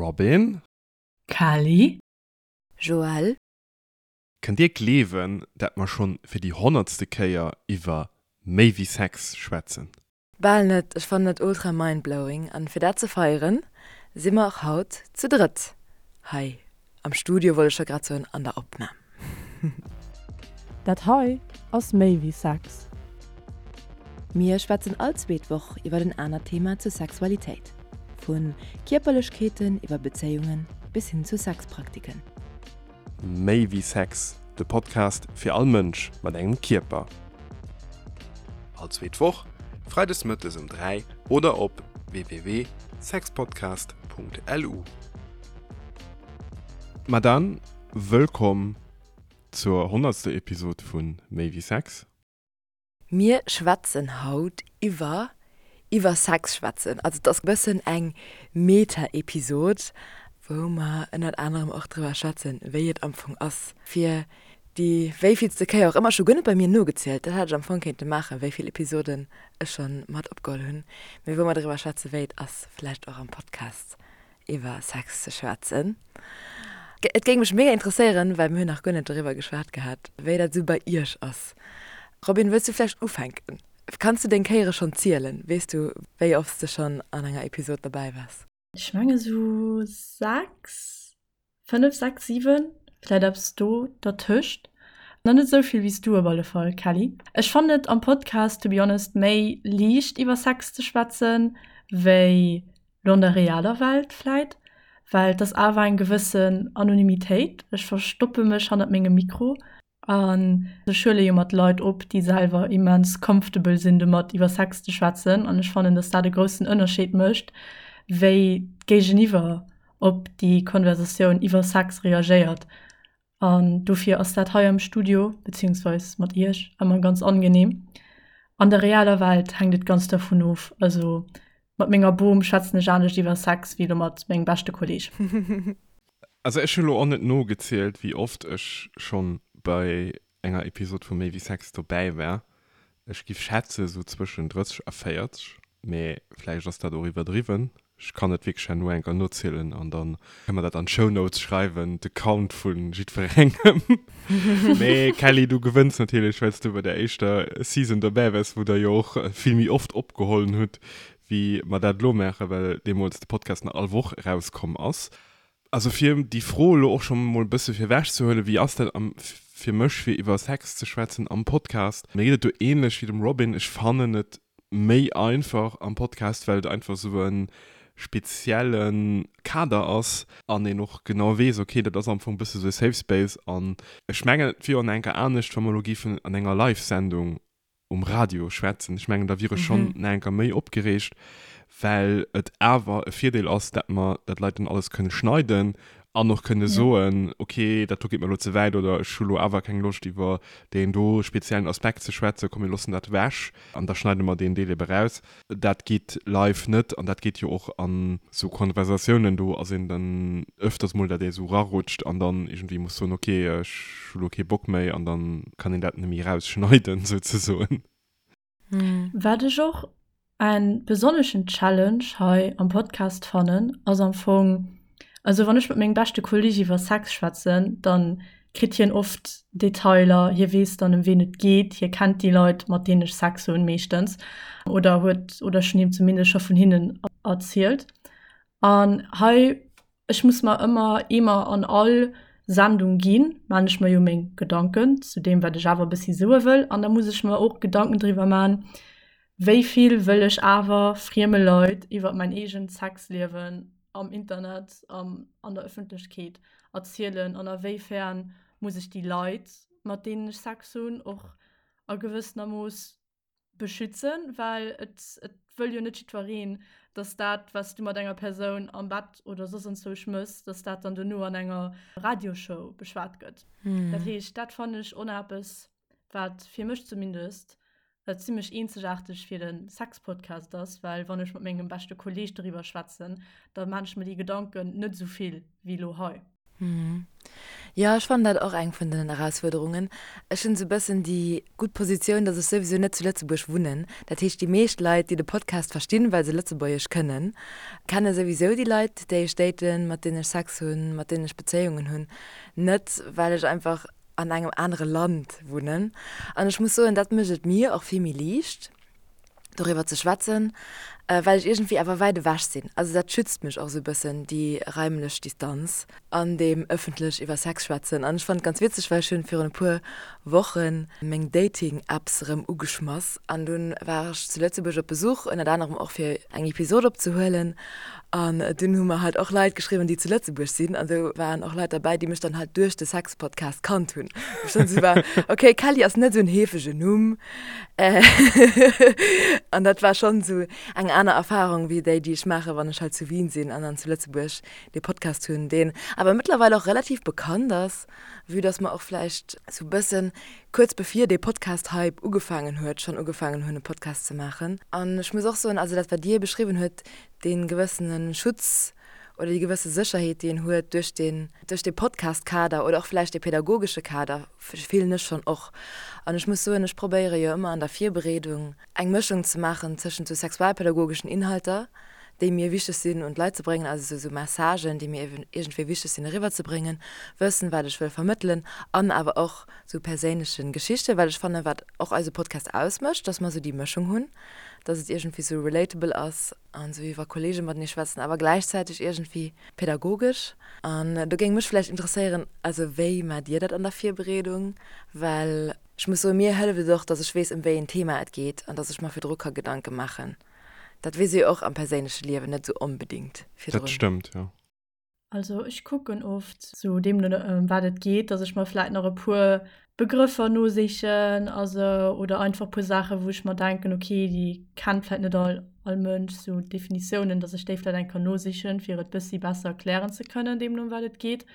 Robin. Kelly. Joël. Kënnt dir gleewen, dat mer schonn fir déi honnertste Kéier iwwer méi wéi Sex schwätzen? Bal net, ech fannen et ultra mindblowing an fir dat ze feieren si mer och haut zu drëtt hei am Studio, wollt ech scho grad soen, an der Opnam. Dat hei ass méi wéi Sex. Mir schwätzen all zweet Woch iwwer en anert Thema zur Sexualitéit, vu Kierperlechkeeten iwwer Bezéiungen bis hin zu Sexpraktiken. Méi wéi Sex, de Podcast fir all Mënsch mat engem Kierper. All zweet Woch, freides mëttes um 3 oder op www.sexpodcast.lu. Ma dann, wëllkomm zur honnertster Episod vu Méi wéi Sex. Mir schwätzen haut iwwer iwwer Sex schwätzen. Also et ass e bëssen eng Meta-Episod, wou mer ënnert anerem och driwwer schwätzen, wéi et am Fong ass, fir déi wéivillste Kéier och ëmmer, ech hu guer net bei mir nogezielt, dat hätt ech am Fong kéinte maachen, wéi vill Episoden ech scho mat opgeholl hunn, mee wou mer driwwer schwätzen, wéi et ass, vläicht och am Podcast iwwer Sex ze schwätzen. Et géing mech mega interesséieren, well mir hunn nach guer net doriwwer geschwat gehat, wéi dat esou bei iech ass. Robin, wëlls du vläicht ufänken? Kanns du deng Kéiere schonn zielen? Weess du, wéi oft s de schonn an enger Episod derbäi waars? Ech menge esou 6, 5, 6, 7, vläit eppes do dertëscht. Nach net esou vill wéi s du op alle Fall, Kelly. Ech fannen et am Podcast to be honest méi liicht iwwer Sex ze schwätzen, wéi Lo an der realer Welt vläit, well et ass awer eng gewëssen Anonymitéit. Ech verstoppe mech hannert mengem Mikro an ech huele jo mat Leit op, déi selwer immens comfortable sinn domat iwwer Sex ze schwätzen an ech fannen, dass dat e groussen Ënnerscheed mécht, wéi d'Géigeniwwer op déi Konversatioun iwwer Sex reagéiert. An dofir ass dat hei am Studio, beziehungsweis mat iech, ëmmer ganz angenehm. An der realer Welt hänkt et ganz dervun of. Also mat menger Bom schwätzen ech anescht iwwer Sex wéi elo mat mengem beschte Kolleg. Also ech hu lo och net nogezielt wéi oft ech schonn bei enger Episod vu Méi wéi Sex dobäi war. Ech giff schätze sou zwëschen 30 a 40, mee vläicht ass dat och iwwerdriwwen. Ech kann et wierklech herno enker nozielen an dann kënne mer dat an d'Show Notes schreiwen, de Count vu jiddwerengem. Mee Kelly, du gewënns natierlech, well s du bei der éischter Season dobäi waars, wou der jo och vill méi oft opgehollen hutt, wéi mer dat elo maachen, well deemools de Podcast nach all Woch erauskomm ass. Also fir déi Fro elo och scho mol e bësse virwech ze huelen, wéi ass dat am fir mech fir iwwer Sex ze schwätzen am Podcast? Mir geet et do ähnlech wéi dem Robin, ech fannen et méi einfach am Podcast, well et einfach esou e spezielle Kader ass an een och genau weess, okay, dat ass am Fong e bësse sou e Safe Space an ech mengen et wier och nach eng Kéier anescht, wa mer elo géifen an enger Live-Sendung um Radio schwätzen. Ech mengen, da wier ech schonn nach eng Kéier méi opgereegt, well et awer e Virdeel ass, dat mer dat Leit dann alles kënne schneiden an och kënne soen, okay, dat do geet mer elo ze wäit oder ech hu lo awer keng Loscht iwwer deen do speziellen Aspekt ze schwätzen, komm mir loossen dat ewech an da schneide mer deen Deel ebe raus. Dat geet live net an dat geet jo och an esou Konversatiounen, do ass een dann öfters mol, dat ee esou rarutscht an dann iergendwéi muss soen, ok, ech hu lo kee Bock méi an dann kann een dat net méi rausschneiden souzesoen. Wat ech och en besonneschen Challenge hei am Podcast fannen, ass am Fong, also wann ech mat mengem beschte Kolleg iwwer Sex schwätzen, dann kritt hien oft Detailer, hie weess dann ëm ween et geet, hie kennt déi Leit mat deenen ech Sex hunn meeschtens oder huet oder ech hunn him zumindest scho vun hinnen erzielt. An hei, ech muss mer ëmmer eemer an all Sendung ginn, maan ech mer jo meng Gedanken zu deem wat ech awer e bëssi soe wëll an da muss ech mer och Gedanken driwwer maan, wéi vill wëll ech awer frieme Leit iwwer mäin eegent Sexliewen am Internet, am an der Ëffentlechkeet erzielen an a wéi fern muss ech déi Leit, mat deenen ech Sex hunn, och a gewëssener Mooss beschützen, well et et wëll jo net jiddwereen, dass dat, wat s du mat enger Persoun am Bett oder soss anzwousch mëss, dass dat dann dono an enger Radioshow beschwat gëtt. Dat heescht, dat fannen ech on eppes, wat fir mech zumindest zimlech eenzegaarteg fir de Sex-Podcast ass, well wann ech mat mengem beschte Kolleeg doriwwer schwätzen, da maan ech mer déi Gedanken net esou vill wéi elo hei. Jo, ech fannen dat och eng vun den Erausfuerderungen. Ech hunn esou e bëssen déi gutt Positioun, datt ech souwisou net zu Lëtzebuerg wunnen. Dat heescht, déi meescht Leit, déi de Podcast verstinn, well se Lëtzebuergesch kënnen, kenne souwisou déi Leit, déi ech daten, mat deenen ech Sex hunn, mat deenen ech Bezéiungen hunn, net, well ech einfach an engem anere Land wunnen. An ech muss soen, dat mécht et mir och vill méi liicht. doriwwer ze schwätzen, well ech iergendwéi awer wäit ewech sinn. Also dat schützt mech och esou e bëssen, déi raimlech Distanz an deem ëffentlech iwwer Sex schwätzen. An ech fannen et ganz witzeg, well ech hunn virun e puer Woche meng Dating-Apps erëm ugeschmass an dunn war ech zu Lëtzebuerg op Besuch, ënnert anerem och fir eng Episod opzehuelen. An dunn hu mer halt och Leit geschriwwen, déi zu Lëtzebuerg sinn. An do waren och Leit derbäi, déi mech dann halt duerch de Sex-Podcast kannt hunn. Wou ech dann esou war, okay, Kelly ass net esou en heefegen Numm. An dat war schonn esou eng aner Erfarung wéi déi, déi ech maachen, wann ech halt zu Wien sinn an dann zu Lëtzebuerg dee Podcast hunn, deen awer mëttlerweil och relativ bekannt ass, vue dass mer och vläicht esou e bëssen kuerz bevir dee Podcast-Hype ugefaangen huet, schonn ugefaangen hunn e Podcast ze maachen. An ech muss och soen, also dat wat Dir beschriwwen huet, dee gewëssene Schutz oder déi gewësse Sécherheet, déi een huet duerch deen, duerch dee Podcast-Kader oder och vläicht dee pädagogesche Kader, fillen ech schonn och. An ech muss soen, ech probéiere jo ëmmer an der Virbereedung eng Mëschung ze maachen tëschent sou sexualpädagogeschen Inhalter, déi mir wichteg sinn un d'Leit ze bréngen, also sou Messagen, déi mir iergendwéi wichteg sinn eriwwerzebréngen, Wëssen, wat ech wëll vermëttelen, an awer och sou perséinleche Geschichten, well ech fannen, wat och eise Podcast ausmécht, dass mer sou déi Mëschung hunn, dass et iergendwéi sou relatable ass an sou wéi wa Kollege matenee schwätzen, awer gläichzäiteg iergendwéi pädagogesch. An do géing mech vläicht interesséieren, also wéi maacht Dir dat an der Virbereedung? Well ech muss soen, mir hëlleft et och, dass ech weess, ëm wéi een Thema et geet an dass ech mer virdru ka Gedanke maachen. Dat weess ee jo och am perséinleche Liewen net esou onbedingt virdrun. Dat stëmmt, jo. Also ech kucken oft sou deemno ëm wat et geet, dass ech mer vläit nach e puer Begrëffer nosichen a sou oder einfach puer Saachen, wou ech mer denken, okay, déi kennt vläit net all all Mënsch, sou Definitiounen, dass ech déi vläit eng Kéier nosichen, fir et bëssi besser erklären ze kënnen, deemno ëm wat et geet.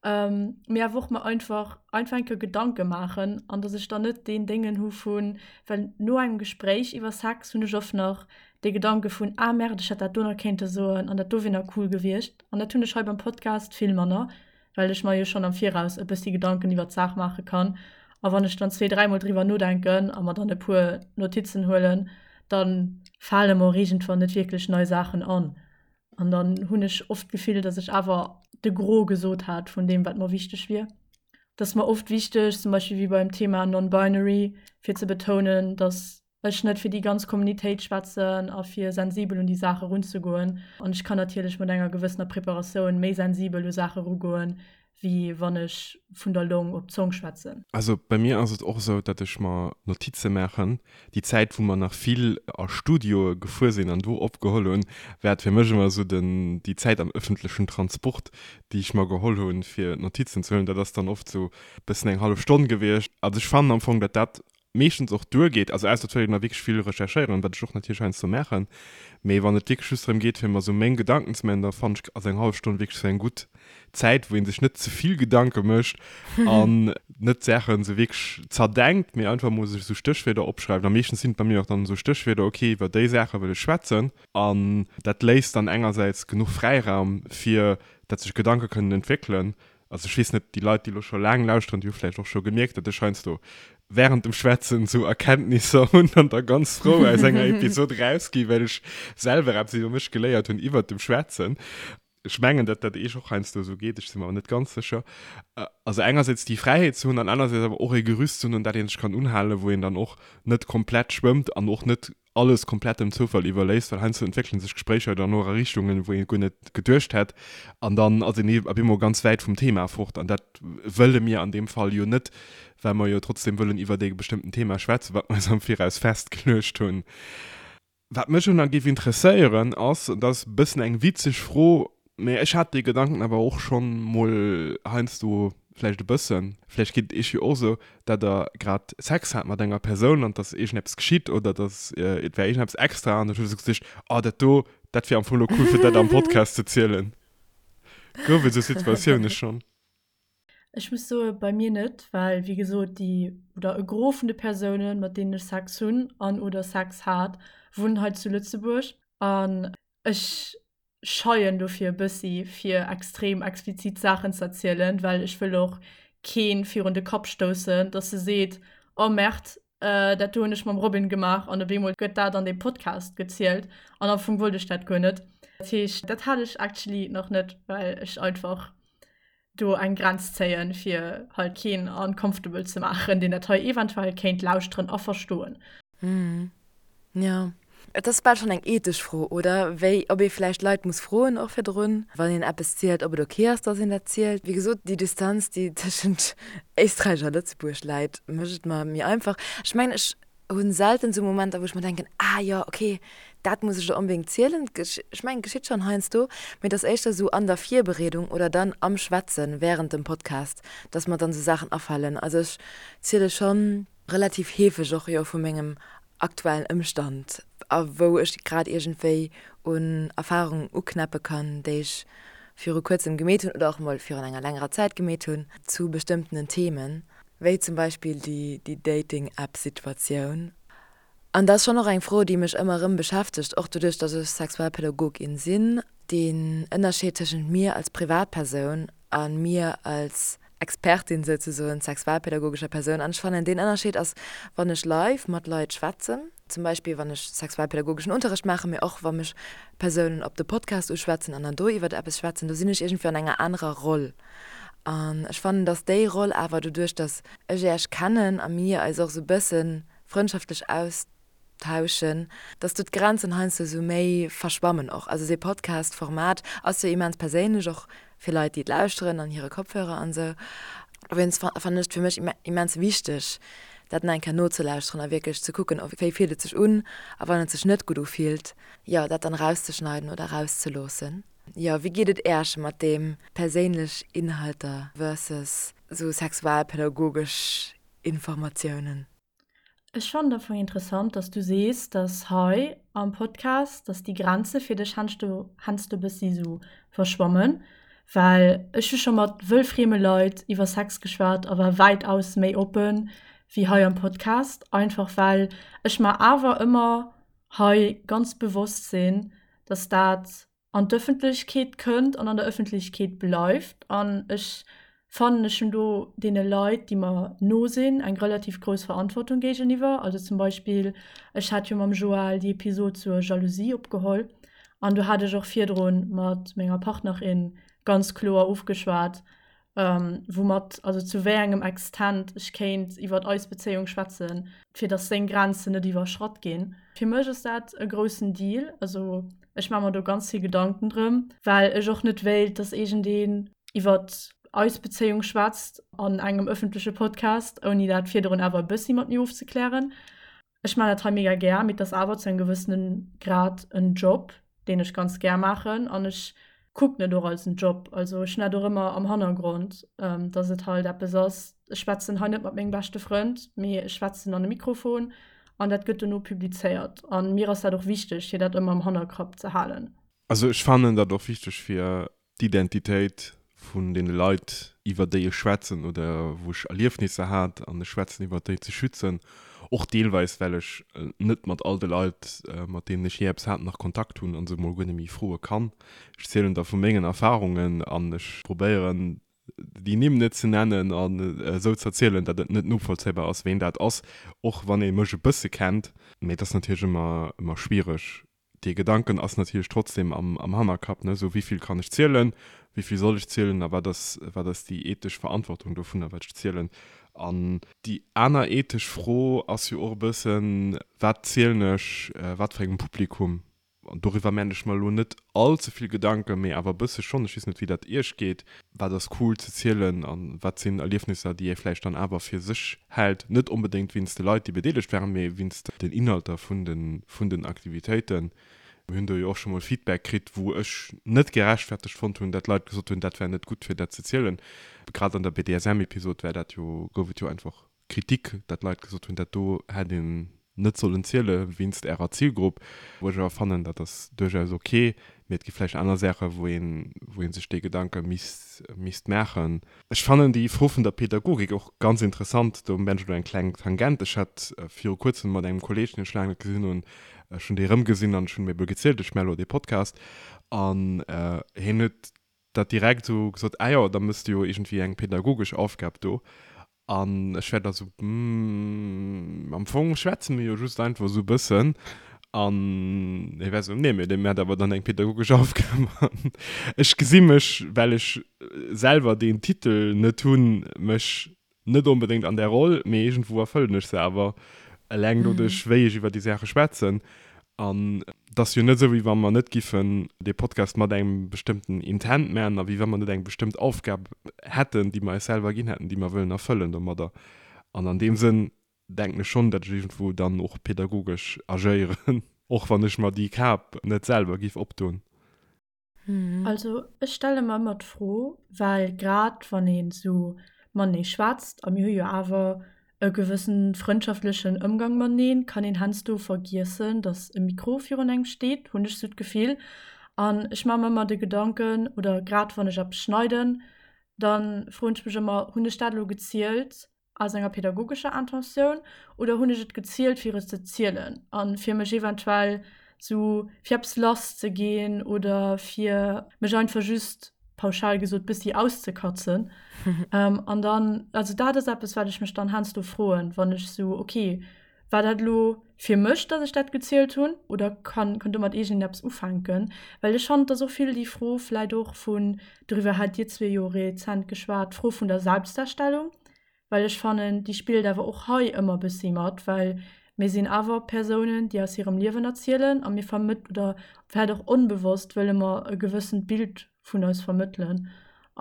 Mee awer och mer einfach einfach eng Kéier Gedanke maachen an dass ech dann net deen Déngen hu vun, well no engem Gespréich iwwer Sex hunn ech oft nach dee Gedanke vun, ah merde, ech hätt dat do nach kéinte soen an dat do wier nach cool gewiescht. An dat hunn ech hei beim Podcast vill manner, well ech mer jo schonn am Viraus e bëssi Gedanken iwwer d'Saach maache kann. A wann ech dann zwee, dräimol driwwer nodenken a mer dann e puer Notizen huelen, da fale mer och iergendwann net wierklech nei Saachen an. An dann hunn ech oft d'Gefill, datt ech awer de Gros gesot hat vun deem, wat mer wichteg wier. Et ass mer oft wichteg, zum Beispill wéi beim Thema Non-Binary, fir ze betounen, datt ech net fir déi ganz Communitéit schwätzen a fir sensibel un déi Saach erunzegoen. An ech kann natierlech mat enger gewëssener Preparatioun méi sensibel u Saache erugoen, wéi wann ech vun der Long op d'Zong schwätzen. Also bei mir ass et och esou, datt ech mer Notize maachen. Déi Zäit, wou mer nach vill a Studioe gefuer sinn an do opgeholl hunn, war et fir mech ëmmer esou den, déi Zäit am ëffentlechen Transport, déi ech mer geholl hunn, fir Notizen ze huelen, dat ass dann oft esou e bëssen eng hallef Stonn gewiescht. Also ech fannen am Fong, datt dat meeschtens och duergeet, also ausser et wëll een da wierklech vill recherchéieren, wat ech och natierlech heiansdo maachen, mee wann et wierklech just drëm geet fir mer esou meng Gedanken ze maachen, da fannen ech ass eng hallef Stonn wierklech esou eng gutt Zäit, wou ee sech net ze vill Gedanke mécht an net d'Saachen esou wierklech zerdenkt, mee einfach mol sech esou Stéchwierder opschreift a meeschtens sinn et bei mir och dann esou Stéchwierder, okay iwwer déi Saache wëll ech schwätzen an dat léisst dann engersäits genuch Fräiraum fir dat sech Gedanke kënnen entwéckelen Also ech weess net, déi Leit, déi elo scho laang lauschteren, déi hu vläicht och scho gemierkt, datt ech heiansdo während dem Schwätzen esou Erkenntnisser hunn an da ganz frou aus enger Episod rausgi, well ech selwer eppes iwwer mech geléiert hunn iwwert dem Schwätzen. Ech mengen, datt dat Iech och heiansdo esou geet, ech si mer awer net ganz sécher. Also engersäits déi Fräiheet ze hunn an anersäits awer och e Gerüst ze hunn, un dat ee sech kann unhalen, wou een dann och net komplett schwëmmt an och net alles komplett dem Zoufall iwwerléisst, well heiansdo entwéckelen sech Gespréicher dann och a Richtungen, wou ee guer net geduecht hätt an dann ass een op eemol ganz wäit vum Thema fort an dat wëlle mir an deem Fall jo net, well mer jo trotzdem wëllen iwwert ee bestëmmten Thema schwätzen, wat mer eis am Viraus festgeluecht hunn. Wat mech elo nach géif interesséieren ass, an dat ass e bëssen eng witzeg Fro, Mee ech hat dee Gedanken awer och schonn mol heiansdo, vläicht e bëssen, vläicht geet et iech jo och esou, dat der grad Sex hat mat enger Persoun an dass iergendeppes geschitt oder dass et war iergendeppes extra an dann hutt der esou gesicht, oh dat do, dat wier am Fong elo cool fir dat am Podcast ze zielen. Gouf et esou Situatioune schonn? Ech muss soe bei mir net, well wéi gesot déi oder e Gros vun de Persounen, mat deenen ech Sex hunn an oder Sex hat, wunnen hei zu Lëtzebuerg an ech. scheien dofir e bëssi fir extrem explizit Saachen ze erzielen, well ech wëll och keen virun de Kapp stoussen, dass e seet, oh Merde, dat do hunn ech mam Robin gemaach an op eemol gëtt dat an deem Podcast gezielt an am Fong wollt ech dat guer net. Dat heescht, dat hat ech actually nach net, well ech einfach do eng Grenz zéien, fir halt keen uncomfortable ze maachen, deen dat hei eventuell kéint lauschteren a verstoen. Jo. Et ass bal schonn eng ethesch Fro, oder? Wéi, ob ee vläicht Leit muss froen och virdrun, wann een eppes zielt, ob et ok ass, dass een dat zielt. Wéi gesot, déi Distanz, déi tëschent Éisträich a Lëtzebuerg läit, mécht et mer méi einfach. Ech mengen, ech hu selten esou Momenter, wou ech mer denken, ah jo, ok, dat muss ech elo onbedéngt zielen. Ech mengen, et geschitt schonn heiansdo, mee et ass éischter esou an der Virbereedung oder dann am Schwätzen wärend dem Podcast, dass mer dann esou Saachen afalen. Also ech ziele schonn relativ heefeg och jo vu mengem aktuellen Ëmstand a wou ech grad iergendwéi un Erfarungen uknäppe kann, déi ech viru kuerzem gemeet hunn oder och mol virun enger längerer Zäit gemeet hunn zu bestëmmtenen Themen, wéi zum Beispill déi Dating-App-Situatioun. An dat ass schonn och eng Fro, déi mech ëmmer erëm beschäftegt, och doduerch, datt ech Sexualpädagogin sinn, deen Ënnerscheed tëschent mir als Privatpersoun a mir als Expertin souzesoen, sexualpädagogescher Persoun. An ech fannen, deen Ënnerscheed ass, wann ech live mat Leit schwätzen, zum Beispill wann ech sexualpädagogeschen Unterrecht maachen, mee och wa mech Persounen op de Podcast uschwätzen an dann do iwwert eppes schwätzen, do sinn ech iergendwéi an enger anerer Roll. An ech fannen, datt déi Roll awer doduerch, datt ech Äech kennen a mir eis och esou e bësse frëndschaftlech austauschen, dass do d'Grenzen heiansdo esou méi verschwammen och. Also dee Podcast-Format ass jo immens perséinlech, och fir Leit, déi et lauschteren an hire Kopfhörer an esou. Dowéinst fannen ech et fir mech immens wichteg, dat nach eng Kéier nozelauschteren a wierklech ze kucken, wéi fillt et sech un a wann et sech net gutt ufillt, jo, dat dann erauszeschneiden oder erauszeloossen. Jo, wéi geet et Äech mat deem perséinlech Inhalter versus esou sexualpädagogesch Informatiounen? Ech fannen am Fong interessant, dass du sees, dass hei am Podcast, dass déi Grenze fir dech heiansdo heiansdo bëssi sou verschwammen, well ech hu scho mat wëllfrieme Leit iwwer Sex geschwat a war wäitaus méi oppen wéi hei am Podcast, einfach well ech mer awer ëmmer hei ganz bewosst sinn, dass dat an d'Ëffentlechkeet kënnt an an der Ëffentlechkeet bleift. An ech fannen, ech hunn do deene Leit, déi mer no sinn, eng relativ grouss Verantwortung géigeniwwer. Also zum Beispill, ech hat jo mam Joël déi Episod zur Jalousie opgeholl an do hat ech och virdru mat menger Partnerin ganz kloer ofgeschwat, woumat, also zu wéi engem Extent ech kéint iwwert eis Bezéiung schwätzen, fir datt seng Grenzen net iwwerschratt ginn. Fir mech ass dat e groussen Deal. Also ech maache mer do ganz vill Gedanken drëm, well ech och net wéilt, datt iergendeen iwwert eis Bezéiung schwätzt an engem ëffentleche Podcast, ouni dat virdrun awer e bëssi mat mir ofzeklären. Ech maan dat hei mega gär, mee et ass awer zu engem gewëssenen Grad en Job, deen ech ganz gär maachen an ech kucken et och als en Job. Also ech hunn dat och ëmmer am Hannergrond, dass et halt eppes ass, ech schwätzen hei net mat mengem beschte Frënd, mee ech schwätzen an e Mikrofon an dat gëtt dono publizéiert. An mir ass dat och wichteg, fir dat ëmmer am Hannerkapp ze halen. Also ech fannen dat och wichteg fir d'Identitéit vun deene Leit, iwwer déi ech schwätzen oder wou ech Erliefnisser hat an ech schwätzen iwwer déi, ze schützen. Och deelweis, well ech net mat all de Leit, mat deenen ech jee eppes hat, nach Kontakt hunn an se emol guer net méi froe kann. Ech zielen da vu mengen Erfarungen an ech probéieren, déi Nimm net ze nennen an esou ze erzielen, datt et net novollzéibar ass, ween dat ass, och wann ee mech e bësse kennt. Mee et ass natierlech ëmmer, ëmmer schwiereg, Dee Gedanken ass natierlech trotzdem am, am Hannerkapp, ne, esou wéivill kann ech zielen, wéivill soll ech zielen a wat ass, wat ass déi ethesch Verantwortung dovunner, wat ech zielen. An déi aner ethesch Fro ass jo och e bëssen, wat zielen ech wat fir engem Publikum? An doriwwer maan ech mer elo net all ze vill Gedanken, mee awer e bësse schonn. Ech weess net, wéi dat iech geet. Wat ass cool ze zielen a wat sinn Erliefnisser, déi ee vläicht dann awer fir sech hält, net onbedéngt wéinst de Leit, déi bedeelegt waren, mee wéinst den Inhalter vun de vun den Aktivitéiten. Mir hunn do jo och scho mol Feedback kritt, wou ech net gerechtfertegt fonnt hunn, dat Leit gesot hunn, dat wär net gutt fir dat ze zielen. Grad an der BDSM-Episod war dat jo, gouf et jo einfach Kritik, dat Leit gesot hunn, dat do hätt een net sollen ziele wéinst Ärer Zilgrupp, wou ech awer fannen, dat ass duerchaus ok, mee et gi vläicht aner Saache wou een, wou ee sech dee Gedanke misst, misst maachen. Ech fannen déi Fro vun der Pädagogik och ganz interessant. Do maan ech elo eng kleng Tangent. Ech hat viru kuerzem mat engem Kolleeg, deen ech laang net gesinn hunn, Ech hunn dee rëmgesinn an ech hunn him ebe gezielt, ech maache lo dee Podcast. An hien huet dat direkt esou gesot, ah jo, da méchs de jo iergendwéi eng pädagogesch Aufgab do. An ech war da sou, Hm, am Fong schwätze mir jo just einfach esou e bëssen. An hie war sou, Nee, mee dir maacht awer dann eng pädagogesch Aufgab. An ech gesi mech, well ech selwer deen Titel net hunn, mech net onbedéngt an där Roll, mee iergendwou erfëllen ech se awer, eleng doduerch, wéi ech iwwer déi Saache schwätzen. An et ass jo net esou, wéi wa mer net giffen dee Podcast mat engem bestëmmten Intent maachen a wéi wa mer net eng bestëmmt Aufgab hätten, déi mer eis selwer ginn hätten, déi mer wëllen erfëllen domadder. An an deem Sënn denken ech schonn, datt ech iergendwou dann och pädagogesch agéieren, och wann ech mer déi Kap net selwer giff opdoen. Also ech stelle mer ëmmer d'Fro, well grad wann een esou matenee schwätzt, a mir hu jo awer e gewëssen frëndschaftlechen Ëmgang mateneen, kann een heiansdo vergiessen, datt e Mikro virun engem steet, hunn ech esou d'Gefill. An ech maache mer ëmmer de Gedanken, oder grad wann ech eppes schneiden, da froen ech mech ëmmer, hunn ech dat elo gezielt aus enger pädagogescher Intentioun oder hunn ech et gezielt fir et ze zielen an fir mech eventuell sou fir eppes lass ze ginn oder fir mech einfach just pauschal gesot bëssi auszekatzen. An dann, also dat ass eppes wat ech mech dann heiansdo froen, wann ech sou okay war dat elo fir mech, datt ech dat gezielt hunn oder kann kann domat iergendeen eppes ufänken? Well ech fannen, et ass och vill déi Fro vläit och vun, doriwwer hat Dir zwee jo rezent geschwat, d'Fro vun der Selbstdarstellung, well ech fannen, déi spillt awer och hei ëmmer bëssi mat, well mir sinn awer Persounen, déi aus hirem Liewen erzielen a mir vermëtt oder vläit och onbewosst wëlle mer e gewëssent Bild vun eis vermëttelen.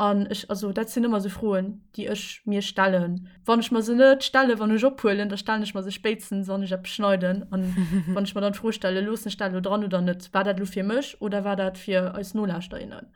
An ech, also dat sinn ëmmer esou Froen, déi ech mir stellen. Wann ech mer se net stellen, wann ech ophuelen, da stellen ech mer se spéitstens, wann ech eppes schneiden. An wann ech mer dann d'Fro stellen, loossen ech dat elo dran oder net? War dat elo fir mech oder war dat fir eis Nolauschterinnen?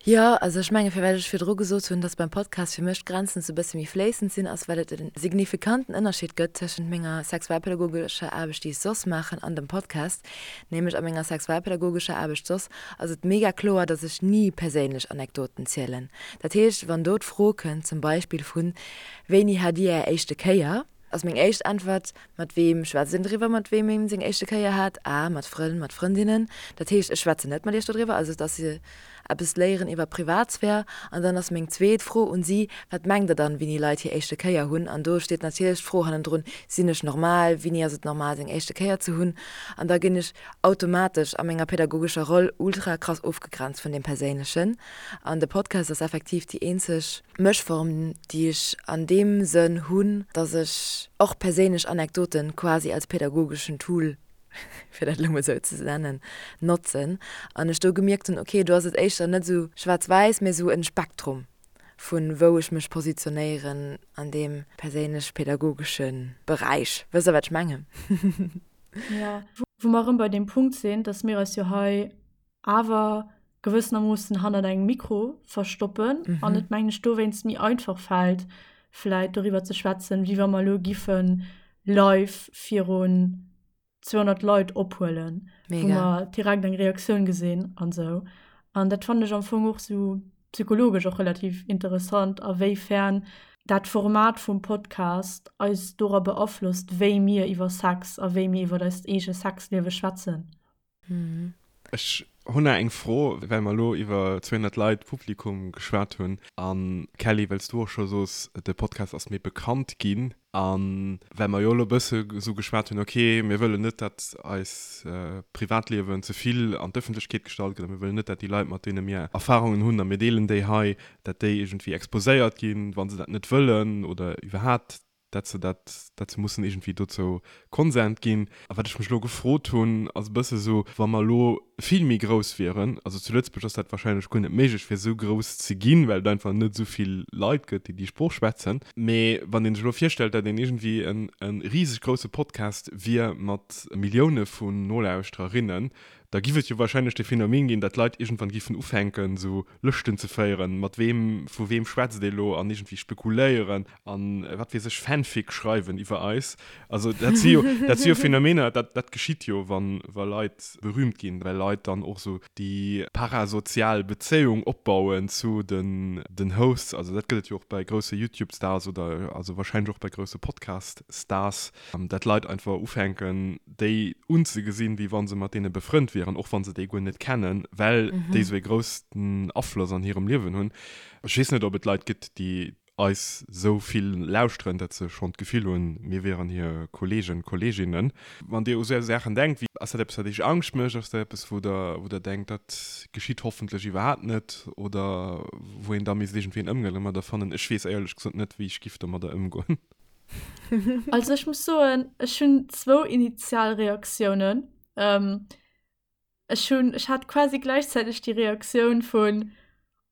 Jo, also ech menge firwat ech virdru gesot hunn, datt beim Podcast fir mech d'Grenzen sou e bësse méi fléissend sinn, ass well et e signifikanten Ënnerscheed gëtt tëschent menger sexualpädagogescher Aarbecht, déi ech soss maachen, an dem Podcast. Nämlech a menger sexualpädagogescher Aarbecht soss ass et mega kloer, datt ech ni perséinlech Anekdoten zielen. Dat heescht, wann do d'Fro kënnt zum Beispill vun, Wéini hat Dir Är éischte Kéier? Ass meng éischt Äntwert, Mat weem schwätzt een driwwer, mat weem een seng éischte Kéier hat? A, Mat Frënn, mat Frëndinnen. Dat heescht, ech schwätzen net mat iech dodriwwer, also et ass eppes léieren iwwer Privatsphär. An dann ass meng zweet Fro un si, Wat mengt der dann, wéini Leit hir éischte Kéier hunn? An do steet natierlech d'Fro hannendrun, Sinn ech normal? Wéini ass et normal, seng éischte Kéier ze hunn? An da ginn ech automatesch a menger pädagogescher Roll ultra krass ofgegrenzt vun deem Perséinlechen. An de Podcast ass effektiv déi eenzeg. Mëschform, déi ech an deem Sënn hunn, dass ech och perséinlech Anekdoten quasi als pädagogeschen Tool, fir dat elo mol esou ze nennen, notzen. An ech do gemierkt hunn, okay, do ass et éischter net esou schwaarz-wäiss, mä esou en Spektrum vu wou ech mech positionéieren an deem perséinlech-pädagogesche Beräich. Wësst Der, wat ech mengen? Jo, wou mer erëm bei deem Punkt sinn, dass mir eis jo hei awer gewëssenermoossen hannert engem Mikro verstoppen mhm. an et mengen ech dowéinst méi einfach fält, vläit doriwwer ze schwätzen, wéi wa mer elo giffe live virun 200 Leit ophuelen, wou mer direkt eng Reaktioun gesinn an esou. An dat fannen ech am Fong och sou psychologesch och relativ interessant, a wéi fern dat Format vum Podcast eis dora beaflosst, wéi mir iwwer Sex a wéi mir iwwer eist eege Sexliewe schwätzen. Ech hunn nach eng Fro, well mer elo iwwer 200 Leit, Publikum, geschwat hunn. A Kelly, well s du och scho sos, de Podcast ass méi bekannt ginn a well mer jo elo e bësse esou geschwat hunn, okay, mir wëllen net, datt eis Privatliewen ze vill an d'Ëffentlechkeet gestallt gëtt a mir wëllen net, datt déi Leit, mat deene mir Erfarungen hunn a mir deelen déi hei, datt déi iergendwéi exposéiert ginn, wa se dat net wëllen oder iwwerhaapt dat se dat, dat se mussen iergendwéi dozou Konsent ginn. A wat ech mech elo gefrot hunn, ass e bësse esou, wa mer elo vill méi grouss wieren, also zu Lëtzebuerg ass dat wahrscheinlech guer net méiglech, fir esou grouss ze ginn, well et einfach net esou vill Leit gëtt, déi déi Sprooch schwätzen, mee wann ee sech elo virstellt, dat een iergendwéi en riseg grousse Podcast wier mat Millioune vun Nolauschtererinnen. Da giff et jo wahrscheinlech de Phänomen ginn, dat d'Leit iergendwann giffen ufänken, sou Lëschten ze féieren, mat weem, vu weem schwätzt ee lo an iergendwéi spekuléieren an wat weess ech, Fanfic schreiwen iwwer eis. Also dat si jo, dat si jo Phänomener, dat, dat geschitt jo, wann, wa Leit berühmt ginn, well Leit dann och sou déi parasozial Bezéiung opbauen zu den, den Hosts. Also dat gëtt et jo och bei grousse YouTube-Stars oder also wahrscheinlech och bei grousse Podcast-Stars, dat Leit einfach ufänken, déi unzegesinn, wéi wa se mat deene befrënnt wieren, och wa se déi guer net kennen, well déi esou ee groussen Afloss an hirem Liewen hunn. Ech weess net, ob et Leit gëtt, déi eis esou vill lauschteren, datt se schonn d'Gefill hunn, mir wieren hir Kolleegen, Kolleeginnen. Wann Dir u sou Saachen denkt, wéi, Ass dat eppes, wat Iech Angscht mécht? Ass dat eppes, wou Der, wou Der denkt, dat geschitt hoffentlech iwwerhaapt net oder wou een da misst iergendwéi en Ëmgang domadder fannen? Ech weess éierlech gesot net, wéi ech giff domadder ëmgoen. Also ech muss soen, ech hunn zwou initial Reaktiounen. Ähm, ech hunn, ech hat quasi gläichzäiteg déi Reaktioun vun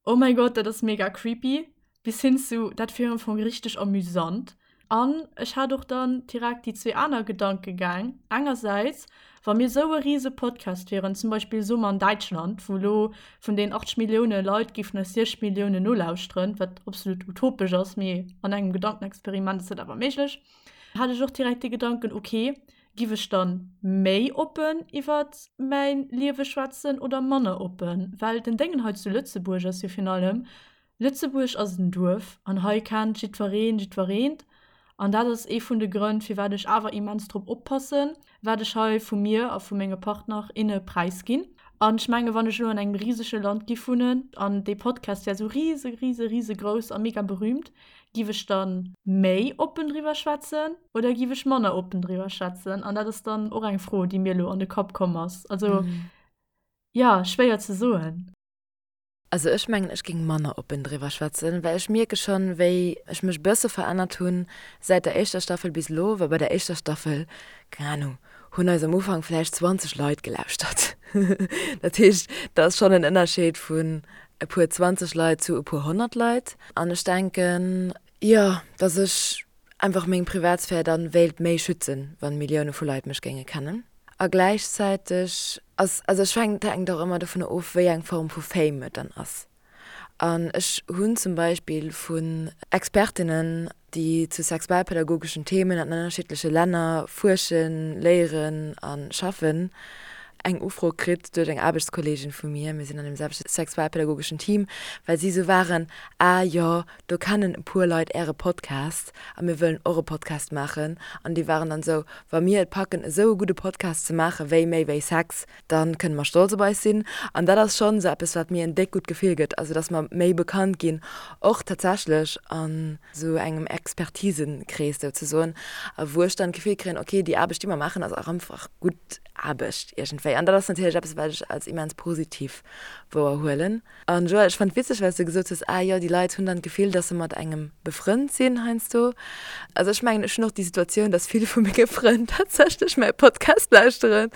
Oh mäi Gott, dat ass mega creepy, bis hin zu dat wier am Fong richteg amüsant. An ech hat och dann direkt déi zwee aner Gedankegäng, engersäits, wa mir esou e rise Podcast wieren, zum Beispill soe mer an Däitschland, wou elo vun den 80 Millioune Leit géifen eis 60 Milliounen nolauschteren, wat absolut utopesch ass, mee an engem Gedankenexperiment ass dat awer méiglech, hat ech och direkt de Gedanken, ok, giff ech dann méi oppen iwwert mäin Liewe schwätzen oder manner oppen? Well den Déngen hei zu Lëtzebuerg ass jo virun allem, Lëtzebuerg ass en Duerf an hei kennt jiddwereen jiddwereent an dat ass ee vun de Grënn firwat ech awer immens drop oppassen, wat ech hei vu mir a vu menge Partner, inne präisginn. An ech menge wann ech elo an engem risege Land giff wunnen an dee Podcast wär esou rise rise risegrouss a mega berühmt, giff ech dann méi oppen driwwer schwätzen oder giff ech manner oppen driwwer schwätzen? An dat ass dann och eng Fro, déi mir elo an de Kapp komm ass. Also jo, schwéier ze soen. Also ech mengen ech géing manner oppen driwwer schwätzen, well ech mierke schonn wéi ech mech bësse verännert hunn säit der éischter Staffel bis elo, well bei der éischter Staffel, keng Ahnung, hunn eis am Ufank vläicht 20 Leit gelauschtert. Dat heescht, da ass schonn en Ënnerscheed vun e puer 20 Leit zu e puer 100 Leit. An ech denken, jo, datt ech einfach meng Privatsphär dann wéilt méi schützen, wann Millioune vu Leit mech géinge kennen. A gläichzäiteg ass, also ech fänkt, hänkt och ëmmer dovunner of, wéi eng Form vu Fame et dann ass. An ech hunn zum Beispill vun Expertinnen, déi zu sexualpädagogeschen Themen an ënnerschiddleche Länner fuerschen, léieren a schaffen, eng Ufro kritt duerch eng Aarbechtskolleegin vu mir, mir sinn an deem selwechte sexualpädagogeschen Team, well si esou waren, ah jo, do kennen e puer Leit äre Podcast a mir wëllen och e Podcast maachen. An déi waren dann esou, wa mir et packen, esou e gudde Podcast ze maache wéi Méi wéi Sex, da kënne mer stolz op eis sinn. An dat ass schonn esou eppes, wat mir en déck gutt Gefill gëtt, also datt mer méi bekannt ginn, och tatsächlech an esou engem Expertisenkrees souzesoen, a wou ech dann d'Gefill kréien, okay, déi Aarbecht, déi mer maachen, ass och einfach gutt Aarbecht iergendwéi. An dat ass natierlech eppes, wat ech als immens positiv wouerhuelen. An Joël, ech fand witzeg, well s de gesot hues, ah jo, déi Leit hunn dann d'Gefill, dass se mat engem befrënnt sinn heiansdo. Also ech mengen, ech hunn och déi Situatioun, dass vill vu menge Frënn tatsächlech mäi Podcast lauschteren.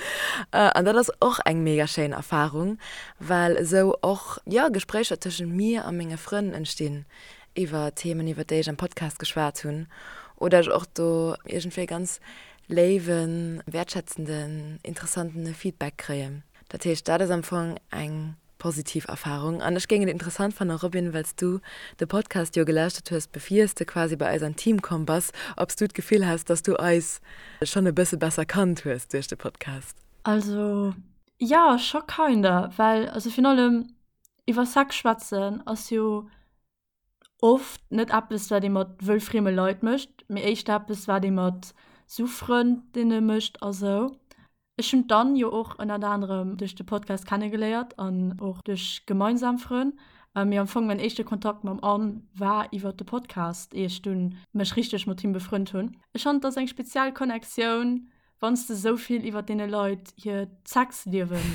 An dat ass och eng mega schéin Erfarung, well esou och, jo, Gespréicher tëschent mir a menge Frënn entstinn iwwer Themen, iwwer déi ech am Podcast geschwat hunn. Oder ech och do iergendwéi ganz léiwen, wäertschätzenden, interessanten Feedback kréien. Dat heescht, dat ass am Fong eng Positiv Erfahrung. An ech géing et interessant fannen, Robin, well s du de Podcast jo gelauschtert hues, bevir s de quasi bei eis an d'Team komm bass, ob s du d'Gefill has, dass du eis schonn e bësse besser kannt hues duerch de Podcast. Also jo, scho kinder, well also virun allem iwwer Sex schwätzen ass jo oft net eppes wat ee mat wëllfrieme Leit mécht, mee éischter eppes wat ee mat sou Frëndinne mécht a sou. Ech hunn d'Anne jo och ënnert anerem duerch de Podcast kennegeléiert an och duerch gemeinsam Frënn. Mee am Fong mäin éischte Kontakt mam Anne war iwwer de Podcast, ier ech dunn mech richteg mat him befrënnt hunn. Ech fannen et ass eng speziell Connectioun, wann s de sou vill iwwer deene Leit hiert Sexliewen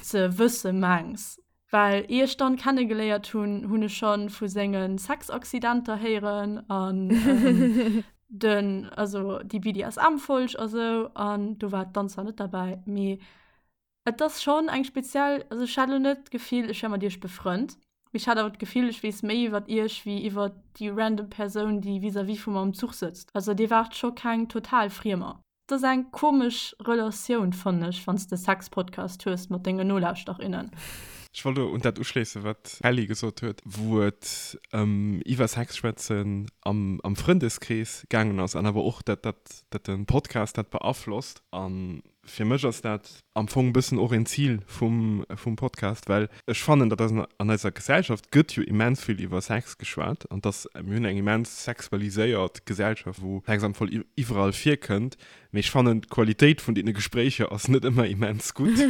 ze wësse mengs. Well ier ech d'Anne kennegeléiert hunn, hunn ech schonn vu senge Sexaccidenter héieren an den, also déi BDSM-Folg a sou, an do war d'Anne zwar net derbäi, mee et ass schonn eng speziell, also ech hat elo net d'Gefill, ech wär mat iech befrënnt, mee ech hat awer d'Gefill, ech weess méi iwwert iech wéi iwwert déi random Persoun, déi vis-à-vis vu mer am Zuch sëtzt. Also dir waart scho keng total Friemer. Dat ass eng komesch Relatioun, fannen ech, wann s de Sex-Podcast hues mat dengen Nolauschterinnen. Ech wollt elo un dat uschléissen, wat d'Kelly gesot huet, wou et ëm iwwer Sex schwätzen am am Frëndeskrees gaangen ass an awer och dat dat dat de Podcast dat beaflosst. A fir mech ass dat am Fong e bëssen och een Zil vum vum Podcast, well ech fannen, datt an eiser Gesellschaft gëtt jo immens vill iwwer Sex geschwat an dass mir hunn eng immens sexualiséiert Gesellschaft, wou Sex am Fong iwwerall virkënnt, mee ech fannen d'Qualitéit vun deene Gespréicher ass net ëmmer immens gutt.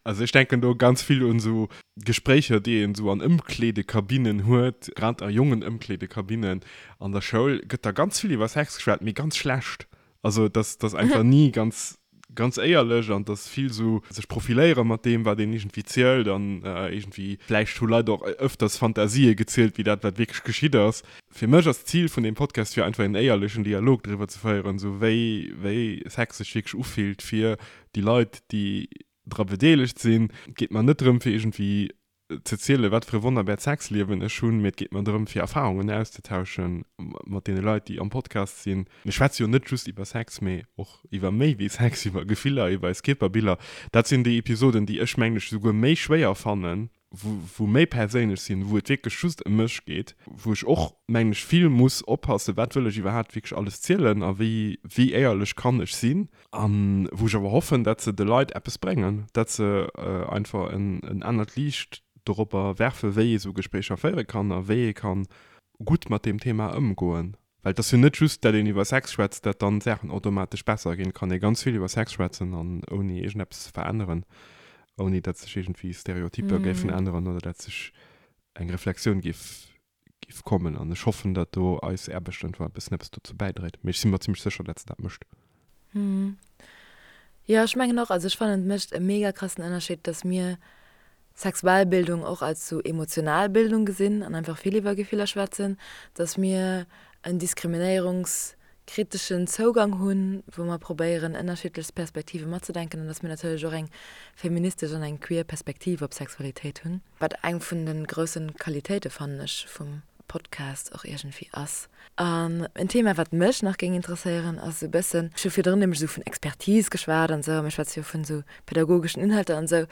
Also ech denken do ganz vill un esou Gespréicher, déi een esou an Ëmkleedekabinnen huet, grad a jongen Ëmkleedekabinnen an der Schoul gëtt da ganz vill iwwer Sex geschwat, mee ganz schlecht. Also dass dass einfach ni ganz ganz éierlech an dass vill sou sech profiléiere mat deem wat een iergendwéi zielt an iergendwéi vläicht hu Leit och ëfters Fantasië gezielt wéi dat wat wierklech geschitt ass. Fir mech ass d'Zil vun deem Podcast fir einfach een éierlechen Dialog driwwer ze féieren, sou wéi wéi Sex sech wierklech ufillt fir déi Leit déi dra bedeelegt sinn. Et geet mer net drëm fir iergendwéi ze zielen, wat fir e wonnerbäert Sexliewen ech hunn, mee et geet mer drëm, fir Erfarungen auszetauschen mat deene Leit, déi am Podcast sinn. Mir schwätze jo net just iwwer Sex, mee och iwwer méi wéi Sex, iwwer Gefiller, iwwer eis Kierperbiller. Dat sinn déi Episoden, déi ech, mengen ech, souguer méi schwéier fannen, wou méi perséinlech sinn, wou et wierklech just ëm mech geet, wou ech och, mengen ech, vill muss oppassen, wat wëll ech iwwerhaapt wierklech alles zielen a wéi éierlech kann ech sinn. A wou ech awer hoffen, dat se de Leit eppes bréngen, dat se einfach en anert Liicht doropper werfen, wéi ee sou Gespréicher féiere kann a wéi ee ka gutt mat deem Thema ëmgoen. Well et ass jo net just, dat een iwwer Sex schwätzt, dat dann d'Saachen automatesch besser ginn. Et kann ee ganz vill iwwer Sex schwätzen an ouni iergendeppes ze veränneren, ouni dat sech iergendwéi Stereotyper géifen änneren oder dat sech eng Reflexioun géif géif kommen an ech hoffen, datt do eis Aarbecht einfach e bëssen eppes dozou bäidréit. Mee ech si mer zimlech sécher, datt se dat mécht. Jo, ech mengen och. Also ech fannen, et mécht e mega krassen Ënnerscheed, datt mir Sexualbildung och als sou emotional Bildung gesinn an einfach vill iwwer Gefiller schwätzen, datt mir en diskriminéierungskriteschen Zougang hunn, wou mer probéieren, ënnerschiddlechst Perspektive matzedenken an datt mir natierlech och eng feministesch an eng queer Perspektiv op Sexualitéit hunn. Wat eng vun de grousse Qualitéite fannen ech vum Podcast och iergendwéi ass. An en Thema wat mech nach géing interesséieren ass esou e bëssen, ech hu virdrun nämlech esou vun Expertise geschwat an esou, a mir schwätze jo vun esou pedagogeschen Inhalter an esou,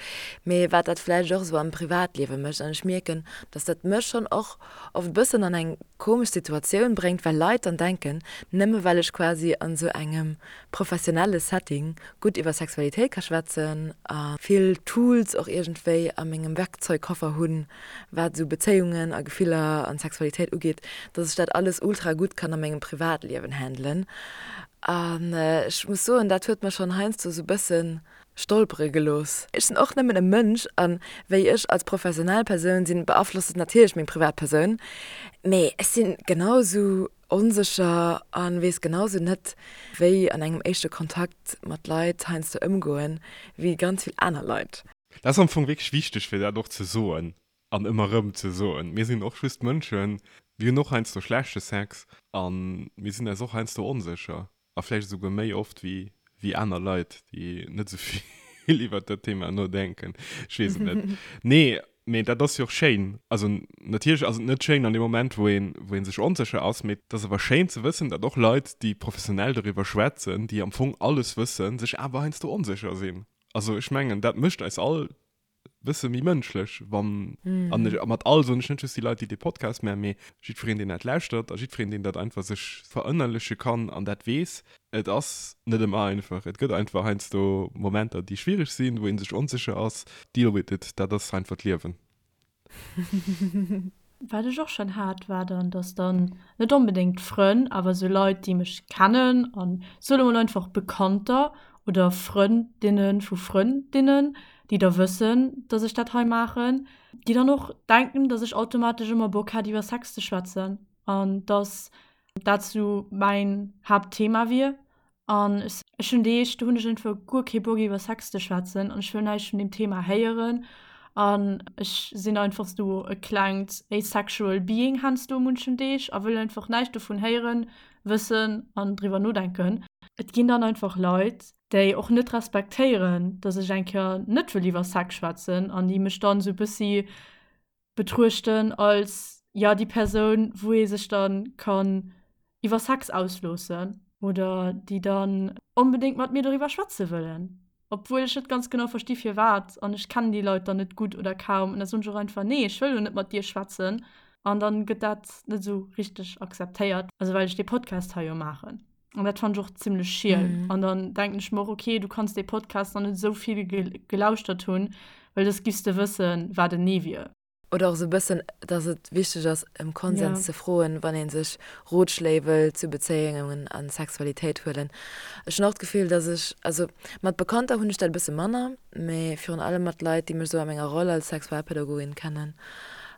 mee wat dat vläicht och esou am Privatliewe mécht. An ech mierken, datt dat mech schonn och oft e bëssen an eng komesch Situatioun bréngt, well Leit dann denken, nëmme well ech quasi an esou engem professionelle Setting gutt iwwer Sexualitéit ka schwätzen a vill Tools och iergendwéi a mengem Werkzeugkoffer hunn, wat esou Bezéiungen a Gefiller an Sexualitéit ugeet, dass ech dat alles ultra gutt kann a mengem Privatliewen handelen. An ech muss soen, dat huet mech schonn heiansdo esou bësse stolpere gelooss. Ech sinn och nëmmen e Mënsch a wéi ech als professionell Persoun sinn, beaflosst et natierlech meng privat Persoun, mee ech sinn genau esou Onsécher a weess genau sou net, wéi an engem éischte Kontakt mat Leit heiansdo ëmgoen, wéi ganz vill aner Leit. Dat ass am Fong wierklech wichteg, fir dat och ze soen an ëmmer erëm ze soen. Mir sinn och just Mënschen, mir hunn och heiansdo schlechte Sex a mir sinn eis och heiansdo onsécher. A vläicht esouguer méi oft wéi wéi aner Leit, déi net esou vill iwwert dat Thema nodenken. Ech weess et net. Nee, mee dat ass jo och schéin. Also natierlech ass et net schéin an deem Moment, wou een, wou ee sech onsécher ass, mee et ass awer schéin ze wëssen, datt och Leit, déi professionell doriwwer schwätzen, déi am Fong alles wëssen, sech awer heiansdo onsécher sinn. Also ech mengen, dat mécht eis all bësse méi mënschlech, wann, an ech, a mat all soen ech net just déi Leit, déi dee Podcast maachen, mee jiddwereen, deen dat lauschtert a jiddwereen, deen dat einfach sech verënnerleche kann an dat weess, et ass net ëmmer einfach. Et gëtt einfach heiansdo Momenter, déi schwiereg sinn, wou ee sech onsécher ass. Deal with it, dat ass einfach d'Liewen. Wat ech och schonn hat, war dann, dass dann net onbedéngt Frënn, awer esou Leit, déi mech kennen an soe mol einfach Bekannter oder Frëndinne vu Frëndinnen, déi da wëssen, dass ech dat hei maachen, déi dann och denken, dass ech automatesch ëmmer Bock hätt iwwer Sex ze schwätzen an dass dat sou mäin Haaptthema wier. An ech hunn Deeg, do hunn ech einfach guer kee Bock iwwer Sex ze schwätzen an ech wëll näischt vun deem Thema héieren an ech sinn einfach sou e klengt asexual being heiansdo munchen Deeg a wëll einfach näischt dovun héieren, wëssen an driwwer nodenken. Et ginn dann einfach Leit, déi och net respektéieren, dass ech eng Kéier net wëll iwwer Sex schwätzen an déi mech dann sou bëssi betruechten als, jo, déi Persoun, wou ee sech dann kann iwwer Sex ausloossen. Oder déi dann onbedéngt mat mir doriwwer schwätze wëllen, obwuel ech net ganz genau versti firwat. An ech kennen déi Leit dann net gutt oder kaum. An da soen ech och einfach, nee, ech wëll elo net mat dir schwätzen. An dann gëtt dat net esou richteg akzeptéiert, also well ech dee Podcast hei jo maachen. An dat fannen ech och zimmlech schiel. An dann denken ech mer och, okay, du kanns dee Podcast nach net esou vill gelauschtert hunn, well soss giffs de wëssen, wat en Nee wier. Oder och esou e bëssen, dass et wichteg ass, ëm Konsens ze froen, wann ee sech Rotschléi wëll zu Bezéiungen a Sexualitéit huelen. Ech hunn och d'Gefill, dass ech, also mat Bekannter hunn ech dat e bësse manner, mee virun allem mat Leit, déi mech esou a menger Roll als Sexualpädagogin kennen,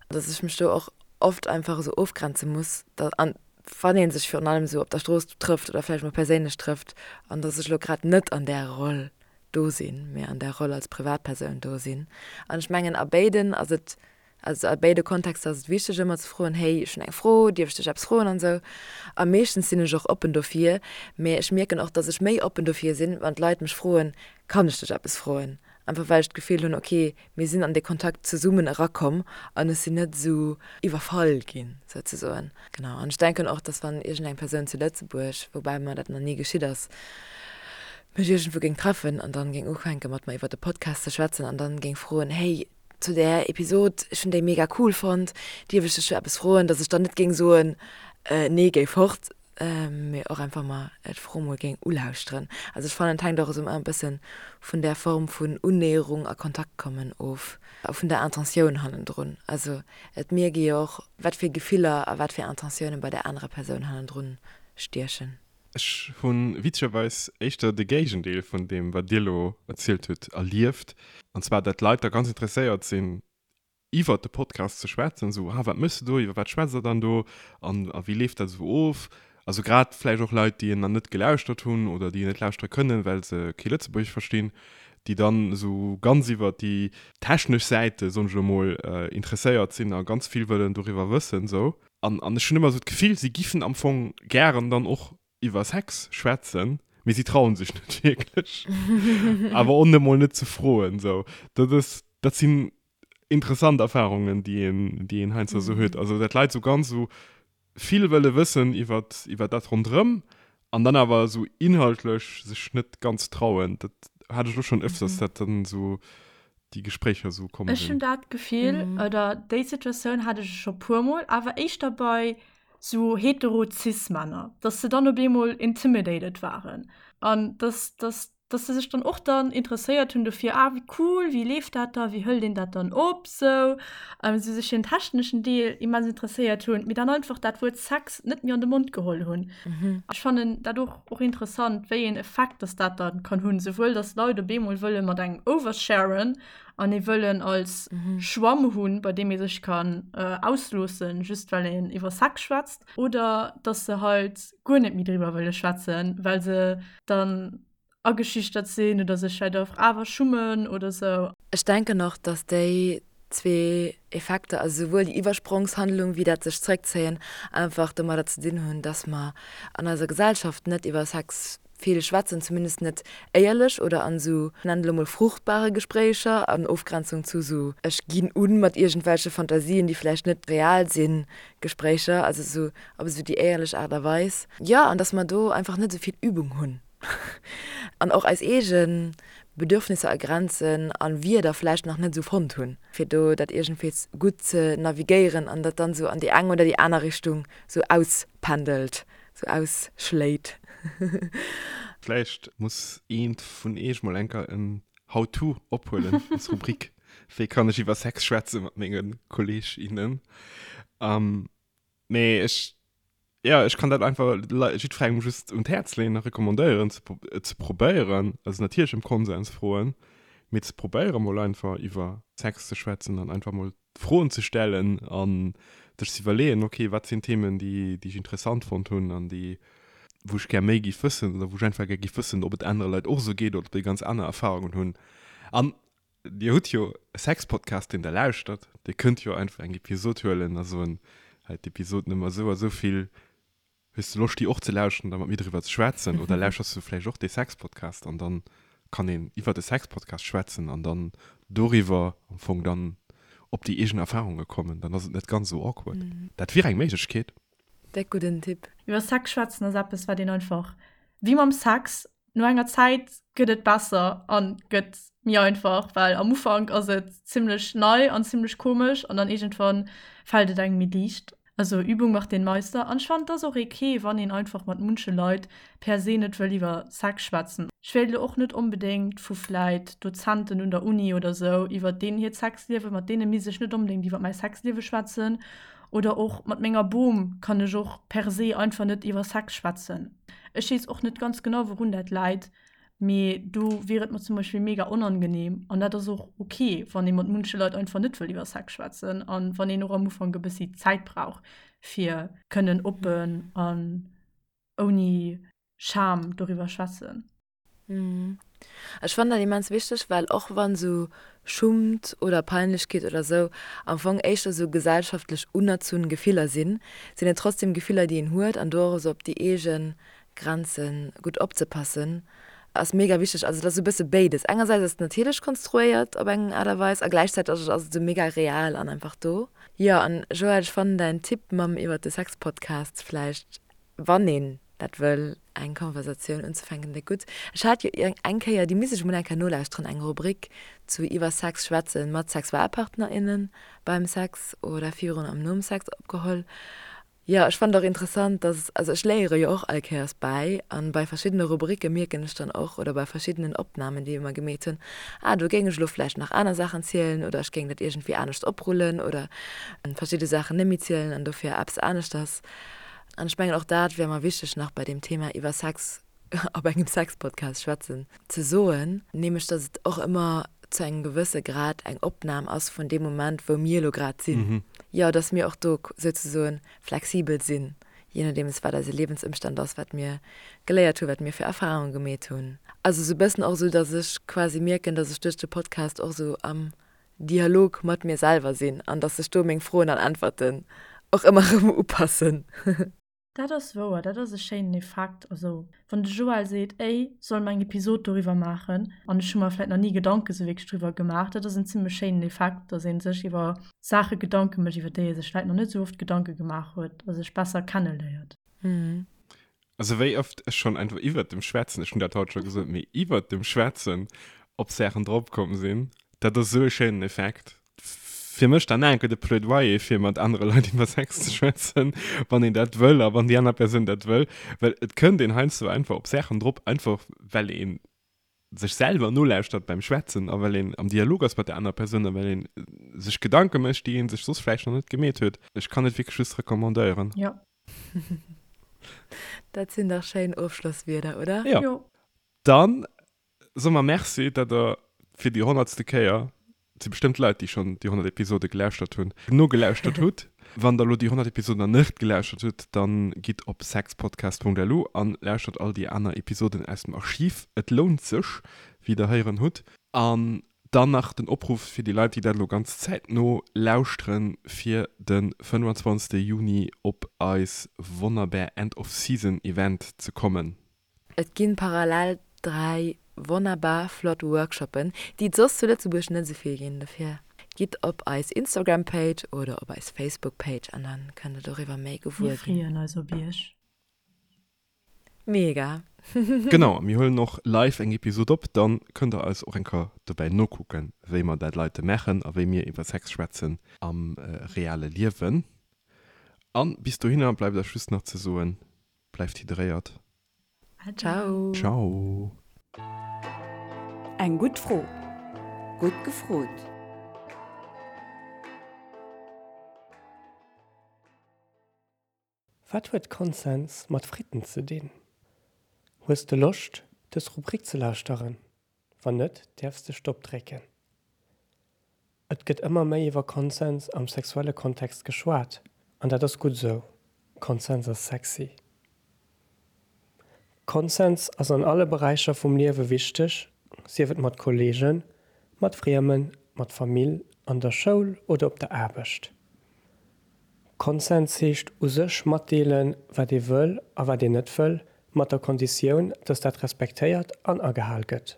dass ech mech do och oft einfach esou ofgrenze muss, da, an wann ee sech virun allem esou op der Strooss trëfft oder vläicht mol perséinlech trëfft, an dass ech elo grad net an där Roll do sinn, mee an der Roll als Privatpersoun do sinn. An ech mengen, a béiden ass et, also a béide Kontexter ass et wichteg ëmmer ze froen, hey, ech hunn eng Fro, dierf ech dech eppes froen an esou. A meeschtens sinn ech och oppen dofir, mee ech mierken och, datt ech méi oppen dofir sinn, wann d'Leit mech froen, kann ech dech eppes froen? Einfach well ech d'Gefill hunn, okay, mir sinn an dee Kontakt zesummen erakomm an ech sinn net esou iwwerfall ginn, souzesoen. Genau. An ech denken och, dass wann iergendeng Persoun zu Lëtzebuerg, woubäi mer dat nach ni geschitt ass, mech iergendwou géing treffen an dann géing ufänke mat mer iwwer de Podcast ze schwätzen an dann géing froen, hey, zu där Episod, ech hunn déi mega cool fonnt, dierf ech dech do eppes froen, dass ech dann net géing soen, nee, géi fort, mee och einfach mer d'Fro mol géing ulauschteren. Also ech fannen, et hänkt och esou e bësse vun där Form vun Unnäherung a Kontakt kommen of a vun der Intentioun hannendrun. Also et mierk ee jo och, wat fir Gefiller a wat fir Intentioune bei där anerer Persoun hannendrun stiechen. Ech hu witzegerweis éischter de Géigendeel vun deem, wat Dir elo erzielt hutt, erlieft. An zwar, dat d'Leit da ganz interesséiert sinn, iwwert de Podcast ze schwätzen, esou, ah, wat méchs de do, iwwer wat schwätzt der dann do an a wéi leeft dat esou of? Also grad vläicht och Leit, déi en nach net gelauschtert hunn oder déi en net lauschtere kënnen, well se kee Lëtzebuergesch verstinn, déi dann esou ganz iwwert déi technesch Säite, soen ech elo mol, interesséiert sinn a ganz vill wëllen doriwwer wëssen esou. An an ech hunn ëmmer esou d'Gefill, si giffen am Fong gären dann och iwwer Sex schwätzen, mee si trauen sech net wierklech, awer och net mol net ze froen esou. Dat ass, dat sinn interessant Erfahrungen, déi een, déi een heiansdo esou huet. Also dat Leit esou ganz esou vill wëlle wëssen iwwer, iwwer dat ronderëm an dann awer esou inhaltlech sech net ganz trauen. Dat hat ech elo schonn ëfters, dat dann esou déi Gespréicher esou komm Ech hunn sinn. dat Gefill, oder déi Situatioun hat ech scho puermol, awer éischter bei sou hetero-cis-Männer, dass se dann op eemol intimidated waren an dass, dass dass se sech dann och dann interesséiert hunn dofir, ah wéi cool, wéi leeft dat da, wéi hëlt een dat dann op sou, ähm, se sech fir den techneschen Deel immens interesséiert hunn, mee dann einfach dat Wuert Sex net méi an de Mond geholl hunn. Ech fannen dat och och interessant, wéi een Effekt dass dat dann kann hunn, souwuel dass Leit op eemol wëlle mat engem oversharen an ee wëllen als Schwamm hunn, bei deem ee sech kann ausloossen, just well een iwwer Sex schwätzt, oder dass se halt guer net méi driwwer wëlle schwätzen, well se dann ageschüchtert sinn oder sech vläicht och awer schummen oder sou. Ech denken och, dass déi zwee Effekter, also souwuel déi Iwwersprongshandlung wéi dat sech zréckzéien, einfach domadder ze dinn hunn, dass mer an eiser Gesellschaft net iwwer Sex vill schwätzen, zumindest net éierlech oder an esou, ech nennen et elo mol fruchtbare Gespréicher, an Ofgrenzung zu esou ech ginn un mat iergendwelche Fantasien, déi vläicht net real sinn, Gespréicher, also esou op esou déi éierlech Aart a Weis. Jo, an dass mer do einfach net esou vill Übung hunn an och eis eege Bedürfnisser a Grenzen a Wierder vläicht nach net esou fonnt hunn, fir do dat iergendwéis gutt ze navigéieren an dat dann esou an déi eng oder déi aner Richtung esou auspendelt, sou ausschléit. Vläicht muss eent vun eech mol enker en How to ophuelen als Rubrik, Wéi kann ech iwwer Sex schwätze mat menge Kolleeg, innen? Mee ech, jo, ech kann dat einfach jiddwerengem just un d'Häerz leeën a recommandéieren, et ze probéieren, also natierlech ëm Konsens froen, mee ze probéiere mol einfach iwwer Sex ze schwätzen an einfach mol Froen ze stellen a sech ze iwwerleeën, ok, wat sinn Themen, déi déi ech interessant fonnt hunn an déi wou ech gär méi géif wëssen oder wou ech einfach gär géif wëssen, ob et anere Leit och esou geet oder ob déi ganz aner Erfarungen hunn. An Dir hutt jo e Sex-Podcast, deen Der lauschtert. Dir kënnt jo einfach eng Episod huelen a soen, hei d'Episod Nummer esou a sou vill Hues de Loscht déi och ze lauschteren a mat mir driwwer ze schwätzen? Oder lauschterst du vläicht och dee Sex-Podcast an dann kann een iwwer de Sex-Podcast schwätzen an dann doriwwer am Fong dann op déi eegen Erfarunge kommen. Dann ass et net ganz esou awkward. Dat wier eng Méiglechkeet. Déck gudden Tipp. Iwwer Sex schwätzen ass eppes wat een einfach. Wéi mam Sex, no enger Zäit gëtt et besser an gëtt méi einfach, well am Ufank ass et zimmlech nei an zimmlech komesch an dann iergendwann fält et engem méi liicht. Also Übung macht den Meister an ech fannen et ass och ok wann een einfach mat munche Leit per se net wëll iwwer Sex schwätzen. Ech wéilt elo och net onbedéngt vu vläit Dozenten un der Uni oder sou iwwer deenen hiert Sexliewen, mat deene misst ech net onbedéngt iwwer mäi Sexliewe schwätzen oder och mat menger Bom kann ech och per se einfach net iwwer Sex schwätzen. Ech weess och net ganz genau wourun dat läit, mee do wier et mer zum Beispill mega onangenehm an dat ass och ok, wann ee mat munche Leit einfach net wëll iwwer Sex schwätzen an wann een och am Ufank e bëssi Zäit brauch fir kënnen oppen an ouni Scham doriwwer schwätzen. Ech fannen dat immens wichteg, well och wann sou Schummt oder Peinlechkeet oder sou am Fong éischter sou gesellschaftlech unerzunn Gefiller sinn, sinn et trotzdem Gefiller déi een huet an do och esou op déi eege Grenze gutt opzepassen ass mega wichteg. Also et ass sou e bësse béides, engersäits ass et natierlech konstruéiert op eng Aart a Weis a gläichzäiteg ass et sou mega real an einfach do. Jo an Joël, ech fannen däin Tipp mam iwwert de Sex-Podcast vläicht, wann een dat wëll, eng Konversatioun unzefänken, déck gutt. Ech hat jo eng Kéier, déi misst ech emol eng Kéier nolauschteren, eng Rubrik zu iwwer Sex schwätzen mat Sexualpartner, innen beim Sex oder virun am nom Sex opgeholl. Jo, ech fannen et och interessant, dass, also ech léiere jo och all Kéiers bäi an bei verschiddene Rubricke mierken ech dann och oder bei verschiddenen Opnamen, déi mer gemeet hunn, ah do géing ech elo vläicht nach aner Saachen zielen oder ech géing dat iergendwéi anescht oprullen oder verschidde Saachen net méi zielen an dofir eppes aneschters. An ech mengen, och dat wär mer wichteg nach bei deem Thema iwwer Sex op engem Sexpodcast schwätzen ze soen, nämlech dass et och ëmmer zu engem gewësse Grad eng Opnam ass vun deem Moment, wou mir elo grad sinn. Jo, dass mir och do souzesoen flexibel sinn, jee nodeems wat eise Liewensëmstand ass, wat mir geléiert hunn, wat mir fir Erfarunge gemeet hunn. Also esou e bëssen och esou, dass ech quasi mierken, dass ech duerch de Podcast och esou am Dialog mat mir selwer sinn an dass sech do meng Froen an Äntwerten och ëmmer erëm upassen. Dat ass wouer, dat ass e schéinen Effekt. Also wann de Joël seet, ey, solle mer eng Episod doriwwer maachen, an ech hu mer vläit nach ni Gedanke sou wierklech driwwer gemaach, dat ass en zimmlech schéinen Effekt, dass ee sech iwwer Saache Gedanke mécht, iwwer déi ee sech vläit nach net sou oft Gedanke gemaach huet a sech besser kenneléiert. Also wéi oft ech schonn einfach iwwert dem Schwätzen, ech hunn dat haut scho gesot, mee iwwert dem Schwätzen op Saachen dropkomm sinn, dat ass esou e schéinen Effekt. Fir mech dann enke de Plaidoyer fir mat anere Leit iwwer Sex ze schwätzen, wann een dat wëll a wann déi aner Persoun dat wëll, well et kënnt een heiansdo einfach op Saachen drop, einfach well ee sech selwer nolauschtert beim Schwätzen a well een am Dialog ass mat der anerer Persoun a well een sech Gedanke mécht, déi ee sech soss vläicht nach net gemeet huet. Ech kann et wierklech just recommandéieren. Jo. Dat sinn dach schéin Ofschlosswierder, oder? Jo. Jo. Dann soe mer Merci, dat der fir déi honnertste Kéier, et si bestëmmt Leit, déi schonn déi 100 Episode gelauschtert hunn, nogelauschtert hutt. Wann der elo déi 100 Episoden nach net gelauschtert hutt, dann gitt op sexpodcast.lu an lauschtert all déi aner Episoden aus dem Archiv. Et lount sech, wéi der héieren hutt. An dann nach den Opruff fir déi Leit, déi dat elo ganz zäitno lauschteren, fir de 25. Juni op eis wonnerbär End of Season Event ze kommen. Et ginn parallel 3 wonnerbar flott Workshoppen, déi et soss zu Lëtzebuerg net esou vill ginn. Dofir gitt op eis Instagram Page oder op eis Facebook Page an dann kënnt der doriwwer méi Mir gewuer ginn. freeën eis op iech. Mega! Genau, a mir huelen och live eng Episod op, dann kënnt der eis och eng Kéier dobäi nokucken, wéi mer dat Leite maachen a wéi mir iwwer Sex schwätzen am reale Liewen. An bis dohinner bleift eis just nach ze soen, Bleift hydréiert. Ciao. Ciao. Eng gutt Fro. Gutt gefrot. Wat huet Konsens mat Fritten ze dinn? Hues de Loscht, dës Rubrik ze lauschteren? Wann net, däerfs de Stopp drécken. Et gëtt ëmmer méi iwwer Konsens am sexuelle Kontext geschwat, an dat ass gutt esou. Konsens ass sexy. Konsens ass an alle Beräicher vum Liewe wichteg, sief et mat Kolleegen, mat Friemen, mat Famill, an der Schoul oder op der Aarbecht. Konsens heescht u sech matdeelen, wat ee wëll a wat een net wëll, mat der Konditioun, dass dat respektéiert an agehal gëtt.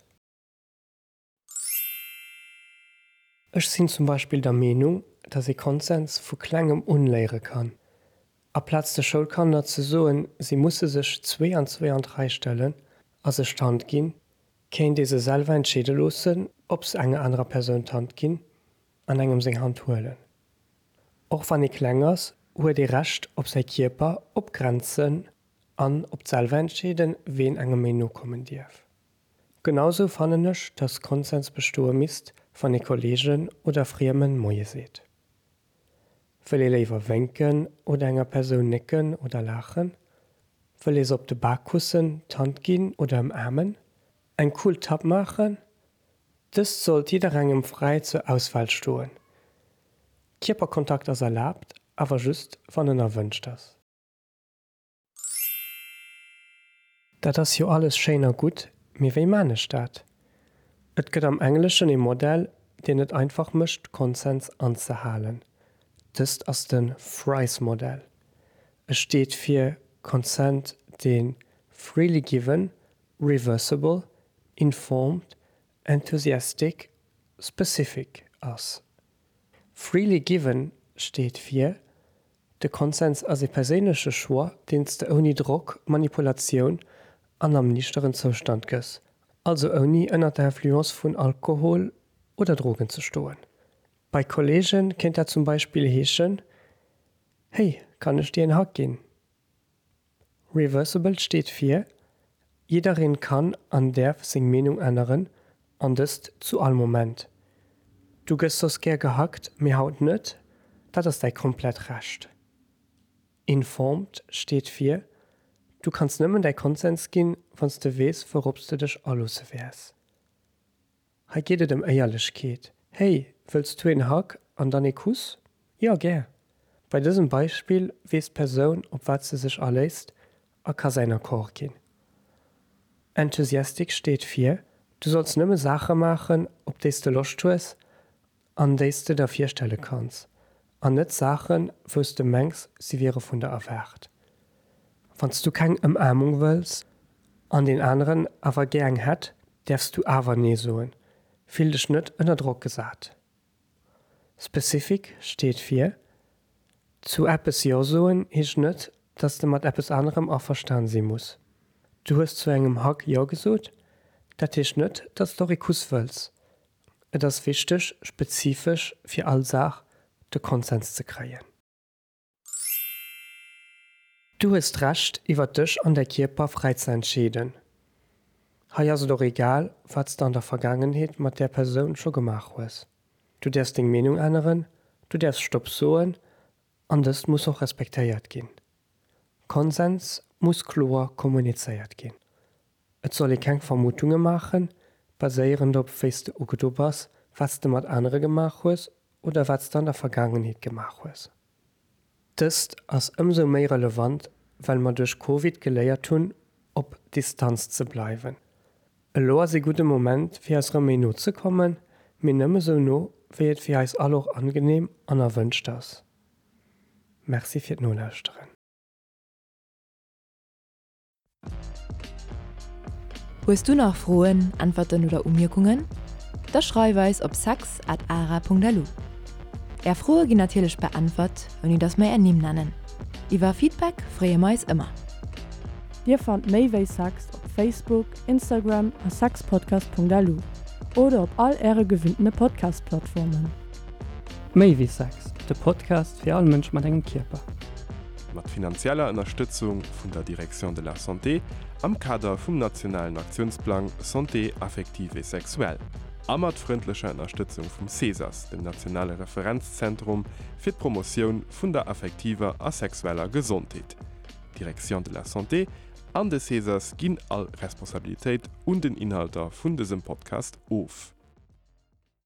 Ech sinn zum Beispill der Meenung, dass ee Konsens vu klengem un léiere kann. Aplaz de Schoulkanner ze soen, si musse sech zwee an zwee an d'Rei stellen a sech d'Hand ginn, kéint ee se selwer entscheede loossen, ob se enger anerer Persoun d'Hand ginn an engem seng Hand huelen. Och wann ee kleng ass, huet ee Recht op säi Kierper, op Grenzen an op d'selwer entscheeden, ween engem méi no kommen dierf. Genausou fannen ech, dass Konsens bestoe misst, wann ee Kollegen oder Friemen Moie seet. Wëll ee léiwer wénken oder enger Persoun nécken oder laachen? Wëll ee se op de Bak kussen, d'Hand ginn oder ëmaarmen? Eng cool Tapp maachen? Dëst sollt jidderengem fräi zur Auswahl stoen. Kierperkontakt ass erlaabt, awer just wann en erwënscht ass. Dat ass jo alles schéin a gutt, mee wéi maan ech dat? Et gëtt am Engleschen ee Modell, deen et einfach mécht Konsens anzehalen. Dëst ass de FRIES-Modell. E steet fir Consent dee freely given, reversible, informed, enthusiastic, specific ass. Freely given steet fir, De Konsens ass ee perséinleche Choix, deen s de ouni Drock, Manipulatioun an am niichteren Zoustand gëss, also ouni ënner der Influence vun Alkohol oder Drogen ze stoen. Bei Kolleege kéint dat zum Beispill heeschen, Hey, kann ech dir en Hug ginn? Reversible steet fir, Jiddereen kann an däerf seng Meenung änneren, an dëst zu all Moment. Du gëss soss gär gehackt, mee haut net, dat ass däi komplett Recht. Informed steet fir, Du kanns nëmmen däi Konsens ginn, wann s de weess wourops de dech aloosse wäers. Hei geet et ëm Éierlechkeet. Hey, wëlls du een Hug an dann ee Kuss? Jo, gär! Bei dësem Beispill weess d'Persoun, op wat se sech aléisst a ka säin Accord ginn. Enthusiastic steet fir, Du solls nëmme Saache maachen, op déi s de Loscht hues an déi s de der virstelle kanns, an net Saachen, wou s de mengs, si wiere vun der erwaart. Wann s du keng Ëmaarmung wëlls an deen aneren awer gär eng hätt, däerfs du awer Nee soen. Fill dech net ënner Drock gesat. Specific steet fir, Zu eppes Jo soen heescht net, dass de mat eppes anerem averstan si muss. Du hues zu engem Hug Jo gesot, dat heescht net, dass de och ee Kuss wëlls. Et ass wichteg, spezifesch fir all Saach de Konsens ze kréien. Du hues d'Recht, iwwer dech an däi Kierper fräi ze entscheeden. Hei ass et och egal, wat s de an der Vergaangenheet mat där Persoun scho gemaach hues. Du däerfs deng Meenung änneren, du däerfs Stopp soen an dëst muss och respektéiert ginn. Konsens muss kloer kommunizéiert ginn. Et soll ee keng Vermuttunge maachen, baséierend op wéi s de ugedo bass, wat s de mat anere gemaach hues oder wat s de an der Vergaangenheet gemaach hues. Dëst ass ëmsou méi relevant, well mer duerch Covid geléiert hunn, op Distanz ze bleiwen. Elo ass ee gudde Moment, fir eis rëm méi no ze kommen, mee nëmme sou no, wéi et fir eis all och angeneem an erwënscht ass. Merci fir d'Nolauschteren. Hues du nach Froen, Äntwerten oder Umierkungen? Da schreif eis op sex at ara.lu. Är Froe ginn natierlech beäntwert, ouni dass mer är Nimm nennen. Iwwer Feedback freeë mer eis ëmmer. Dir fannt méi wéi Sex op Facebook, Instagram a sexpodcast.lu oder op all äre gewinntene Podcast-Plattformen. Méi wéi Sex, de Podcast fir all Mënsch mat engem Kierper. Mat finanzieller Ënnerstëtzung vun der Direction de la Santé am Kader vum nationalen Aktiounsplang Santé affective et sexuelle a mat frëndlecher Ënnerstëtzung vum CESAS, dem nationale Referenzzentrum fir d'Promotioun vun der affektiver a sexueller Gesondheet. D'Direction de la Santé an de CESAS ginn all Responsabilitéit un den Inhalter vun dësem Podcast of.